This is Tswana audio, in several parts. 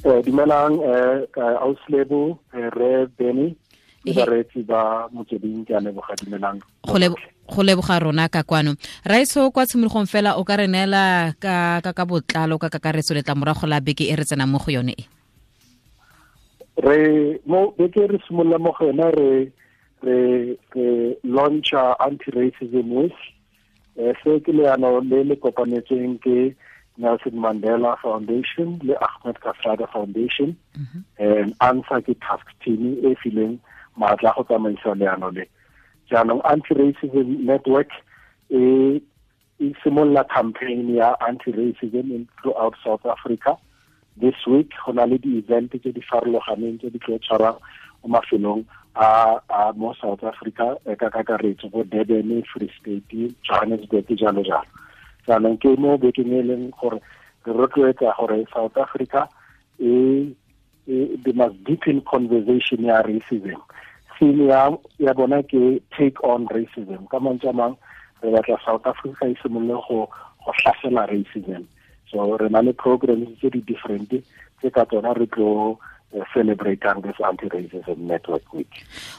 Dumelang auslebo re Benny le bareetsi ba Motsweding, ke a leboga. Dumelang. Go leboga rona ka kwano. Raiso, kwa tshimologong fela o ka re neela ka botlalo ka kakaretso letlamorago la beke e re tsenang mo go yone e? Re mo beke re simolola mo go yone, re launcha Anti-Racism Week. Se ke leano le le kopanetsweng ke Nelson Mandela Foundation le Ahmed Kathrada Foundation. And ANSA ke task team e fileng maatla go tsamaisa leano le. Jaanong Anti-Racism Network e simolola campaign ya anti-racism throughout South Africa this week. Go na le di-event tse di farologaneng tse di tlo tshwarang mo mafelong a mo South Africa ka kakaretso, bo Durban, Free State, Johannesburg, jalo jalo. Jaanong ke mo bekeng e leng gore re rotloetsa gore South Africa e they must deepen conversation ya racism. Theme ya bona ke "Take on Racism". Ka mantswe a mang, re batla South Africa e simolole go hlasela racism. So re na le programs tse di different tse ka tsona re tlo celebrating this Anti-Racism Network Week.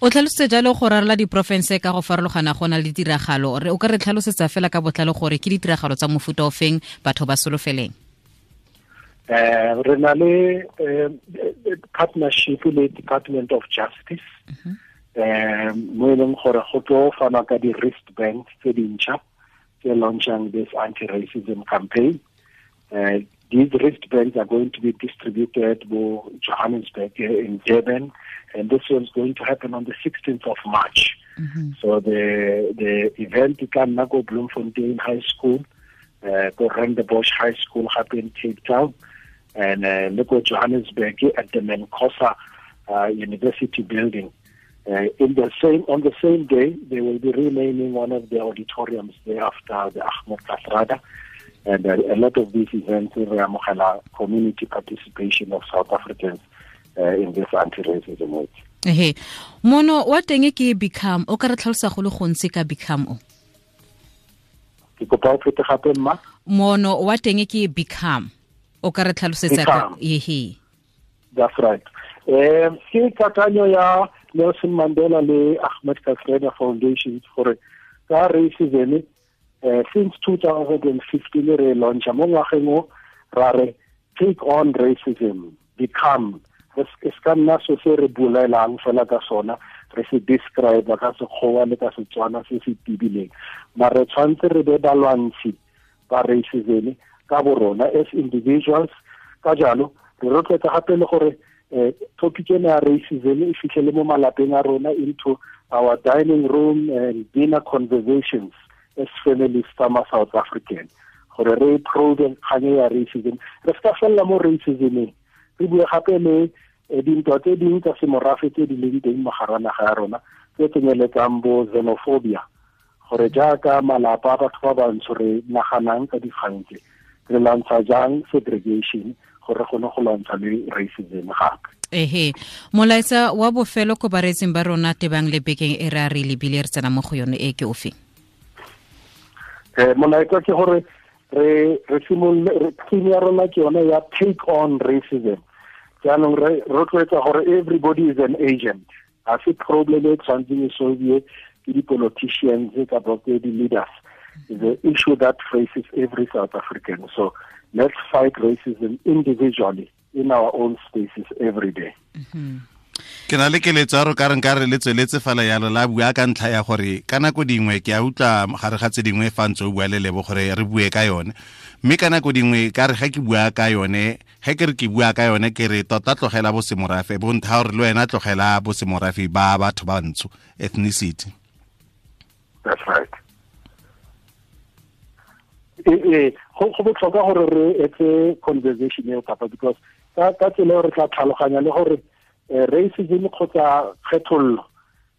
O tlhalositse jalo go rarela diporofense ka go farologana go na le ditiragalo. Re o ka re tlhalosetsa fela ka botlalo gore ke ditiragalo tsa mofuta o feng, batho ba solofeleng? Re na le partnership le Department of Justice, mo e leng gore go tlo fanwa ka di-wristbands tse dintšha tse launchang this anti-racism campaign. These wristbands are going to be distributed to Johannesburg, in Durban, and this one's going to happen on the 16th of March. So the event e tla nna ko Bloemfontein High School, ko Rondebosch High School gape in Cape Town, and le ko Johannesburg at the Mancosa University building. In the same on the same day, they will be renaming one of the auditoriums there after the Ahmed Kathrada. And a lot of these events re amogela community participation of South Africans in this anti-racism week. Ehe, mono wa teng ke "Become". O ka re tlhalosa go le gontsi ka "Become" o? Ke kopa o phete gape, mma. Mono wa teng ke "Become". O ka re tlhalosetsa ka ehe? That's right. Ke kakanyo ya Nelson Mandela le Ahmed Kathrada Foundations gore ka racism, since 2015 re launcha mo ngwageng o, ra re "Take on Racism, Become". Re se ka nna so se re bolelang fela ka sona, re se describe ka Sekgowa le ka Setswana se se tibileng, mare tshwanetse re be balwantshi ba racism ka borona as individuals. Ka jalo re rotloetsa gape le gore topic ena ya racism e fitlhele mo malapeng a rona, into our dining room and dinner conversations as families tsa ma South African, gore re probe kgang ya racism. Re se ka felela mo racismeng, re bue gape le dintwa tse dingwe tsa semorafe tse di leng teng mo gara naga ya rona, tse tsenyeletsang bo xenophobia, gore jaaka malapa a batho ba bantsho re naganang ka dikgang tse, re lwantsha jang segregation, gore re kgone go lwantsha le racism gape. Ehe, molaetsa wa bofelo ko bareetsing ba rona tebang le bekeng e re a re lebile re tsena mo go yone e ke ofe? Molaetsa ke gore re simolole. Theme ya rona ke yone ya "Take on Racism". Jaanong re rotloetsa gore everybody is an agent. Ga se problem e tshwanetseng e solve ke di-politicians kapa ke di-leaders. Is an issue that faces every South African, so let's fight racism individually in our own spaces every day. Ke na le keletso ya ro ka reng ka re le tsweletse fela yalo la bua, ka ntlha ya gore ka nako dingwe ke a utlwa gare ga tse dingwe fa ntse o bua le Lebo gore re bue ka yone, mme ka nako dingwe ka re ga ke bua ka yone, ge ke re ke bua ka yone, ke re tota tlogela bosemorafe bo ntha gore le wena tlogela bosemorafe ba batho ba ntsho, ethnicity. That's right. Ee, go botlhokwa gore re etse conversation eo kapa, because ka tsela eo re tla tlhaloganya le gore racism kgotsa kgethollo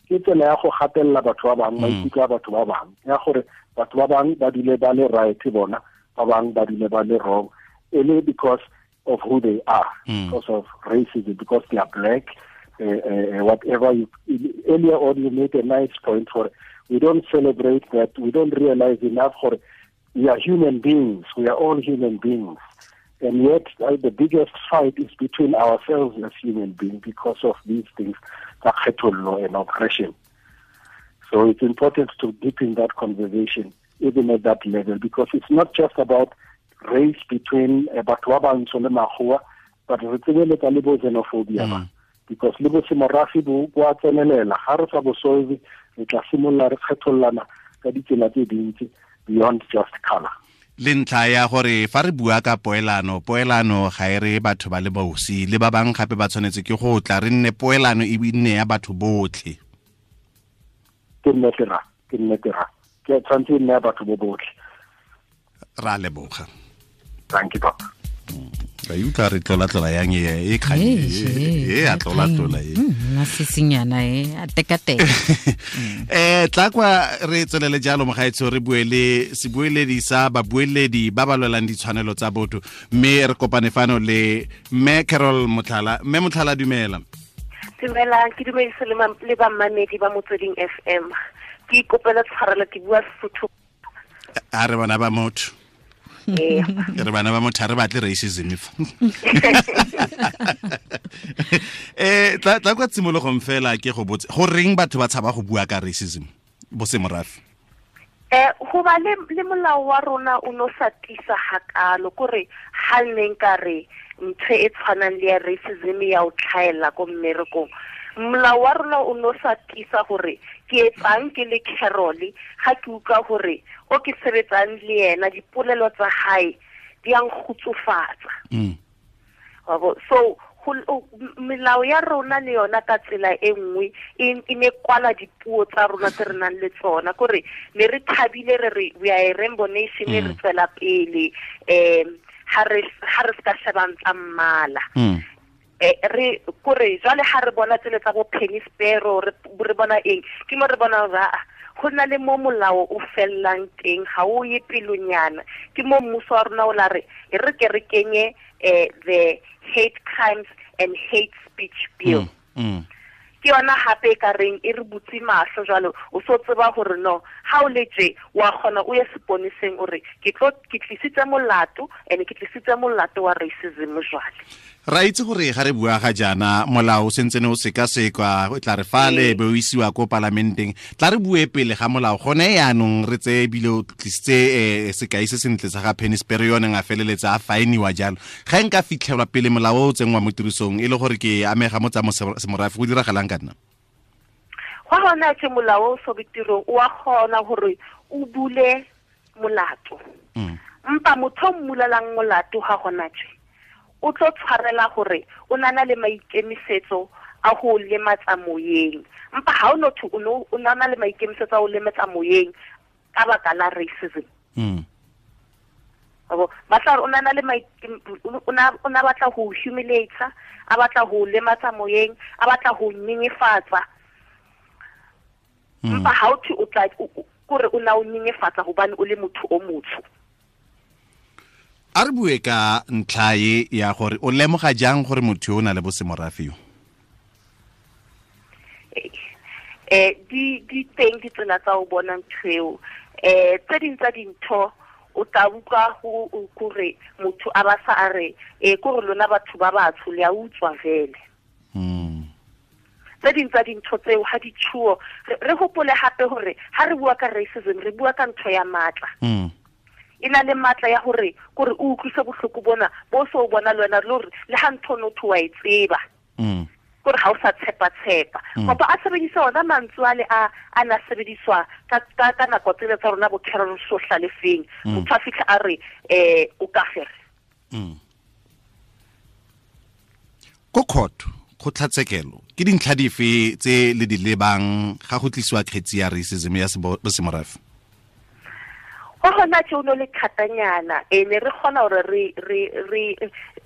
ke tsela ya go gatelela batho ba bangwe, maikutlo a batho ba bangwe, ya gore batho ba bangwe ba dule ba le right, bona ba bangwe ba dule ba le wrong, e le because of who they are, because of racism, because they are black, whatever. You earlier on you made a nice point for we don't celebrate that, we don't realize enough for we are human beings, we are all human beings. And yet the biggest fight is between ourselves as human beings because of these things, kgethollo and oppression. So it's important to deepen that conversation even at that level, because it's not just about race between batho ba bantsho le makgowa, but re tsenyeletsa le bo xenophobia, because le bo semorafe bo a tsenelela. Ga re sa bo solve, re tla simolola re kgethollana ka ditsela tse dintsi beyond just color. Le ntlha ya gore fa re bua ka poelano, poelano ga e re batho ba le bosi le ba bang gape ba tshwanetse ke go tla re nne poelano e nne ya batho botlhe. Ke nnete ra, ke nnete ra. Ke tshwanetse e nne ya batho bo botlhe. Ra leboga. Thank you, Papa. Ka utlwa re tlola-tlola yang e kgang e a tlola-tlola e. Masisinyana e a tekateka. Tla kwa re tswelele jalo mogaetsho, re bue le sebueledi sa babueledi ba ba lwelang ditshwanelo tsa botho, mme re kopane fano le Mme Carol Motlhala. Mme Motlhala, dumela. Dumela, ke dumedise le bammamedi ba Motsweding FM. Ke ikopela tshwarelo, ke bua Sesotho. A re bana ba motho. Re bana ba motho, re batle racism fa. Tla kwa tshimologong fela ke go botse, go reng batho ba tshaba go bua ka racism bo semorafe? Go ba le molao wa rona o no sa tlisa hakalo, kore ha nne nka re ntho e tshwanang le ya racism ya o tlhaela ko mmerekong. Molao wa rona o no sa tlisa gore ke etsang ke le Carol, ga ke utlwa gore o ke sebetsang le yena dipolelo tsa hae di a nkgutsufatsa. So melao ya rona le yona ka tsela e nngwe e ne kwala dipuo tsa rona tse re nang le tsona, kore ne re thabile re re we are a rainbow nation, re tswela pele, ha re se ka shebang tsa mmala. Re kore jwale ha re bona tsele tsa bo Penny Sparrow, re bona eng, ke mo re bona hore go na le mo molao o fellang teng, ga o ye pelonyana. Ke mo mmuso wa rona o la re e re ke re kenye the Hate Crimes and Hate Speech Bill. Ke yona hape e ka reng e re butse mahlo jwalo, o so tseba hore no ha o le tje wa kgona o ye seponeseng o re ke tlisitse molato, and ke tlisitse molato wa racism jwale. Ra itse gore ga re bua ga jaana molao o sentse ne o sekasekwa, o tla re fale be o isiwa ko palamenteng. Tla re bue pele ga molao gone yaanong, re tseye ebile o tlisitse sekai se sentle sa ga Penny Sparrow, yone a feleletsa a faeniwa jalo. Ga nka fitlhelwa pele molao o tsenngwa mo tirisong e le gore ke amega mo tsa semorafe, go diragalang ka nna? Go gona ke molao o so betirong, o a kgona gore o bule molato. Mpa motho o mmulelang molato ga gona tje, o tlo tshwarela gore o nana le maikemisetso a go lematsa moyeng. Mpa ha o no thu o nana le maikemisetso a go lematsa moyeng ka baka la racism. Ba tla re o nana le o na batla go humiliate, a batla go lematsa moyeng, a batla go nyenyefatsa. Mpa ha o thi o tla kore o na o nyenyefatsa hobane o le motho o motsho. A re bue ka ntlha e ya gore o lemoga jang gore motho o na le bosemorafe yo? Di teng ditsela tsa o bona ntho eo. Tse ding tsa dintho o tla utlwa go kore motho a ba sa a re, kore lona batho ba batsho le a utswa vele. Tse ding tsa dintho tseo ha di tshuo, re hopole hape hore ha re bua ka racism re bua ka ntho ya matla. E na le matla ya hore kore o utlwise bohloko bona bo so bona le wena le hore le ha ntho no tho wa e tseba. Kore ha o sa tshepa-tshepa. Kapa a sebedisa ona mantswe ale a na sebediswa ka nako tsele tsa rona bo Carol Sohlalefeng. Motho a fitlha a re, o ka fere. Ko court, kgotlatshekelo, ke dintlha dife tse le di lebang ga go tlisiwa kgetsi ya racism ya bosemorafe? Go gona tse o no le thatanyana, ne re kgona hore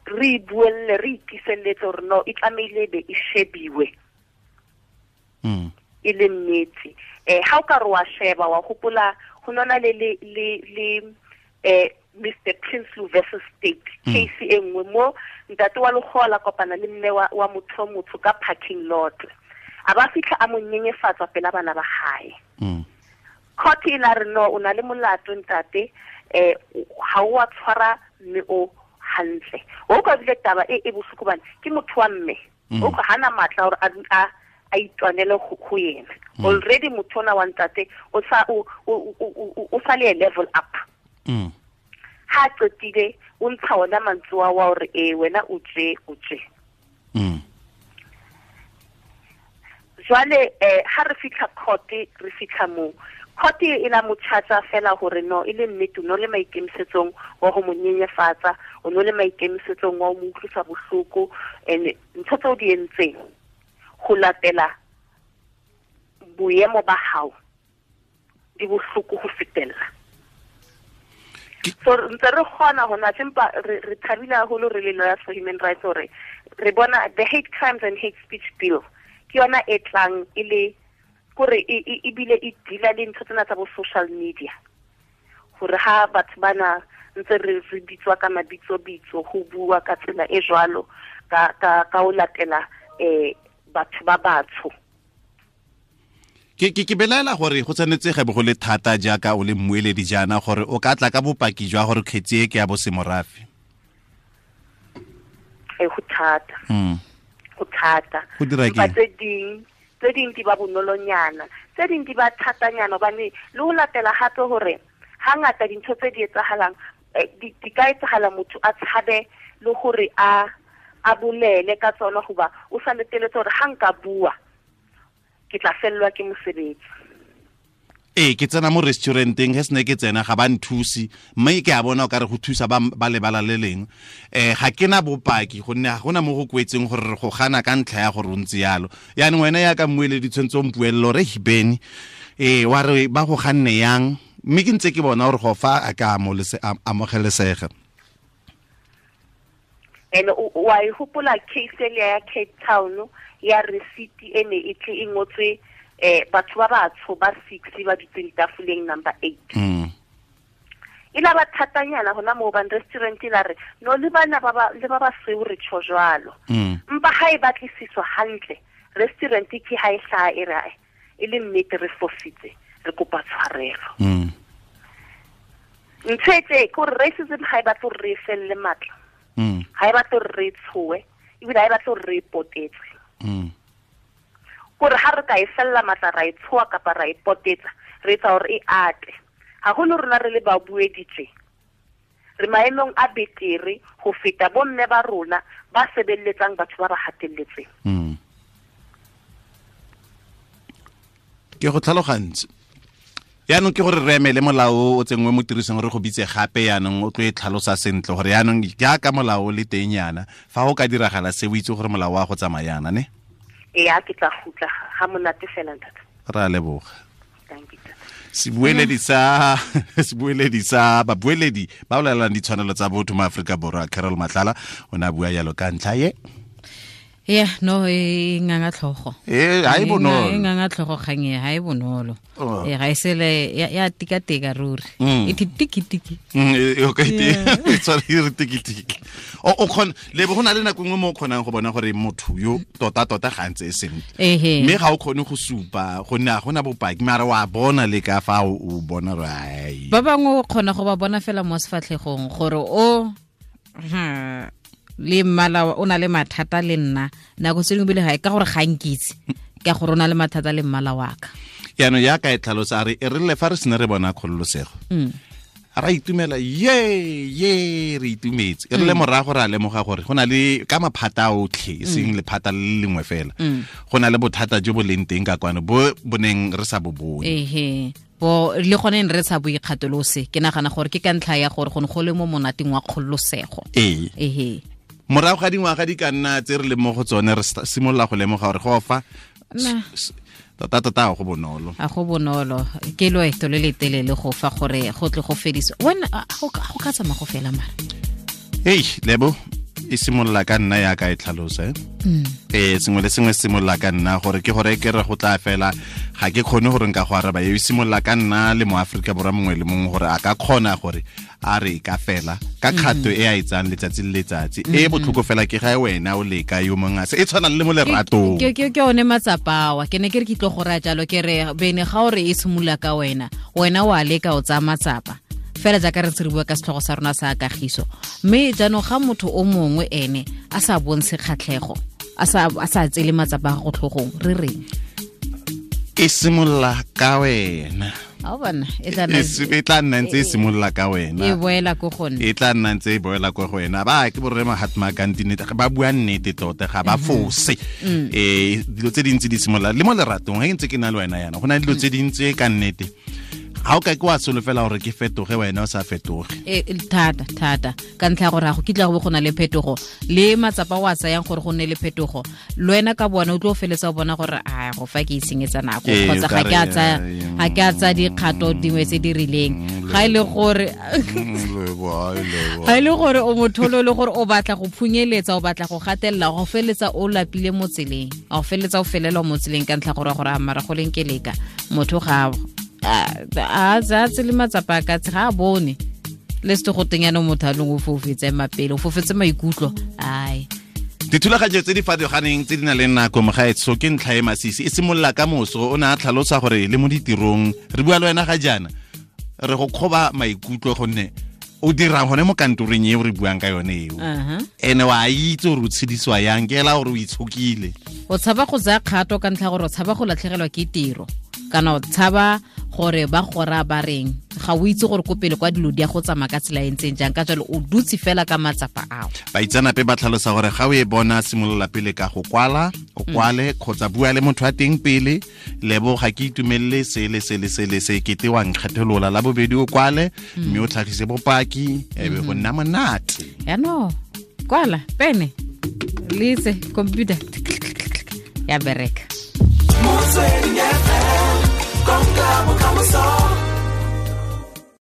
re buelle, re itiselletse hore no e tlamehile be e shebiwe. E le nnete. Ha o ka re wa sheba, wa hopola ho nona le Mr Prinsloo versus State case e nngwe mo ntate wa lekgowa la kopana le mme wa motho o motsho ka parking lot. A ba fitlha a mo nyenyefatsa pela bana ba hae. Court e la re no, o na le molato ntate, ha o a tshwara mme o hantle o ka bile taba e bohloko bana ke motho wa mme o ka hana matla hore a itwanele go yena. Already motho ona wa ntate o sa o sa le level up. Ha qetile o ntsha ona mantswe wa hore wena o tje. Jwale ha re fihla court, re fihla mo court e la mo charge fela hore no e le nnete no le maikemisetsong wa ho mo nyenyefatsa, o no le maikemisetsong wa ho mo utlwisa bohloko, and ntho tseo di entseng go latela boemo ba hao di bohloko go fetella. So ntse re kgona hona empa re thabile haholo re le Lawyers for Human Rights hore re bona the Hate Crimes and Hate Speech Bill ke yona e tlang e le kore e bile e deala le ntho tsena tsa bo social media, hore ha batho bana ntse re bitswa ka mabitso bitso ho bua ka tsela e jwalo ka ho latela batho ba batsho. Ke belaela gore go tshwanetse ga bo go le thata jaaka o le mmueledi jaana gore o ka tla ka bopaki jwa gore kgetsi e ke ya bosemorafe. Go thata. Go thata. Go dira ke tse ding di ba bonolonyana, tse ding di ba thatanyana, hobane le ho latela hape hore hangata dintho tse di etsahalang di ka etsahala motho a tshabe le hore a bolele ka tsona, hoba o sa leteletse hore ha nka bua ke tla fellwa ke mosebetsi. Ke tsena mo restauranteng, he sene ke tsena ga ba nthusi, mme ke a bona o ka re go thusa ba lebala le leng. Ga ke na bopaki gonne ga gona mo go kwetseng gore re go gana ka ntlha ya gore o ntse yalo. Yaanong wena ya ka mmueledi tshwanetse o mpuelele gore Beni wa re ba go ganne yang, mme ke ntse ke bona gore go fa a ka amogelesega. And wa e hopola case ele ya Cape Town ya receipt e ne e tle e ngotswe batho ba batsho ba 6 ba dutseng tafoleng number 8. E la ba thatanyana hona moo ban restaurant la re no le bana ba le ba basweu re tjho jwalo. Mpa ha e batlisiswa hantle restaurant ke ha e hlaha e re e le nnete re fositse, re kopa tshwarelo. Ntho e tse ke hore racism ha e batle hore re felle matla. Ha e batle hore re tshoe, ebile ha e batle hore re potetse. Kore ha re ka e fella matla ra e tshoa kapa ra e potetsa, re etsa hore e ate. Haholo rona re le babuedi tje, re maemong a betere ho feta bomme ba rona ba sebeletsang batho ba ba hatelletseng. Ke go tlhalogantse. Yaanong ke gore re emele molao o tsengwe mo tirisong re go bitse gape, yaanong o tlo e tlhalosa sentle gore yaanong jaaka molao le teng yana fa go ka diragala se o itse gore molao wa go tsamaya yana ne. Ee, ke tla gutla ga monate fela ntate. Ra leboga. Thank you. Sebueledi sa babueledi ba bolelang ditshwanelo tsa botho mo Afrika Borwa, Carol Matlala, o ne a bua yalo ka ntlha ye. Yeah, no e nganga tlhogo. Ha e bonolo. E nganga tlhogo kgang e ha e bonolo. Ga e sele ya tikateka ruri. E tiki tiki. Okay, e tshware re tiki tiki. O khona le bo gona le nako nngwe mo o kgonang go bona gore motho yo tota tota ga ntse e sentle. Mme ga o khone go supa gonne ga gona bopaki, mara wa bona le ka fa o bona rai. Ba bangwe o kgona go ba bona fela mo sefatlhegong gore o le mmala o na le mathata le nna nako tse dingwe bile ga e ka gore ga nkitse ka gore o na le mathata le mmala wa ka. Yaanong yaka e tlhalosa a re e rile fa re sene re bona kgololosego ra itumela ye re itumetse, e rile morago ra lemoga gore go na le ka maphata a otlhe e seng lephata le lengwe fela, go na le bothata jo bo leng teng ka kwano bo boneng re sa bo bone. Bo le gone re sa boikgatolose, ke nagana gore ke ka ntlha ya gore go ne go le mo monateng wa kgololosego. Morago ga dingwaga di ka nna tse re leng mo go tsone re simolola go lemoga gore go fa tota tota ga go bonolo. A go bonolo, ke loeto le le telele go fa gore go tle go fediswe. Wena go ka tsamaya go fela mara. Hey, Lebo, e simolola ka nna yaka e tlhalosa. Sengwe le sengwe se simolola ka nna gore ke gore ke re go tla fela ga ke kgone gore nka go araba. E simolola ka nna le mo Afrika Borwa mongwe le mongwe gore a ka kgona gore a re ka fela ka kgato e a etsang letsatsi le letsatsi. E botlhoko fela ke ga wena o leka yo mongwe a se e tshwana le mo leratong. Ke one matsapawa ke ne ke re ke tlo go raya jalo ke re bene ga o re e simolola ka wena, wena wa leka o tsaya matsapa. Fela jaaka re ntse re bua ka setlhogo sa rona sa kagiso, mme jaanong ga motho o mongwe ene a sa bontshe kgatlhego, a sa tsele matsapa a go tlhogong, re reng? E simolola ka wena. E tla nna ntse e simolola ka wena, e boela ko go nna, e tla nna ntse e boela ko go wena. Ba ke borre Mahatma Gandhi nnete, ba bua nnete tota, ga ba fose. Dilo tse dintsi di simolola le mo leratong. Ga ke ntse ke na le wena yana, go na le dilo tse dintsi ka nnete ga o ka ke wa solofela gore ke fetoge, wena o sa fetoge. Thata thata, ka ntlha ya gore ga go kitla go bo go na le phetogo, le matsapa o a tsayang gore go nne le phetogo, le wena ka bona o tlo feletsa o bona gore a go fa ke itshenyetsa nako, kgotsa ga ke a tsaya dikgato dingwe tse di rileng. Ga e le gore ga e le gore o motho le gore o batla go phunyeletsa, o batla go gatelela, go feletsa o lapile mo tseleng, go feletsa o felelwa mo tseleng ka ntlha gore gore a mara go leng ke leka motho ga a tsele matsapa ka ga a bone le se go teng yana motho a leng o fofetse mapele, o fofetse maikutlo. Ai, dithulaganyo tse di farologaneng tse di nang le nako mogaetsho ke ntlha e masisi e simolola ka moso. O ne a tlhalosa gore le mo ditirong re bua le wena ga jaana re go kgoba maikutlo gonne o dirang gone mo kantoreng eo re buang ka yone eo, ene wa itse gore o tshedisiwa yang, ke ela gore o itshokile. O tshaba go tsaya kgato ka ntlha gore o tshaba go latlhegelwa ke tiro, kana o tshaba gore ba gora ba reng, ga o itse gore ko pele kwa dilo di a go tsamaya ka tsela e ntseng jang, ka jalo o dutse fela ka matsapa ao. Baitsanape ba tlhalosa gore ga o e bona, simolola pele ka go kwala, o kwale kgotsa bua le motho wa teng pele, lebo ga ke itumelele se le se le se le se, kete wa nkgetholola. La bobedi o kwale mme o tlhagise bopaki, e be go nna monate. Yaanong kwala pene le itse computer ya bereka. Motsweding FM, konka bokamoso.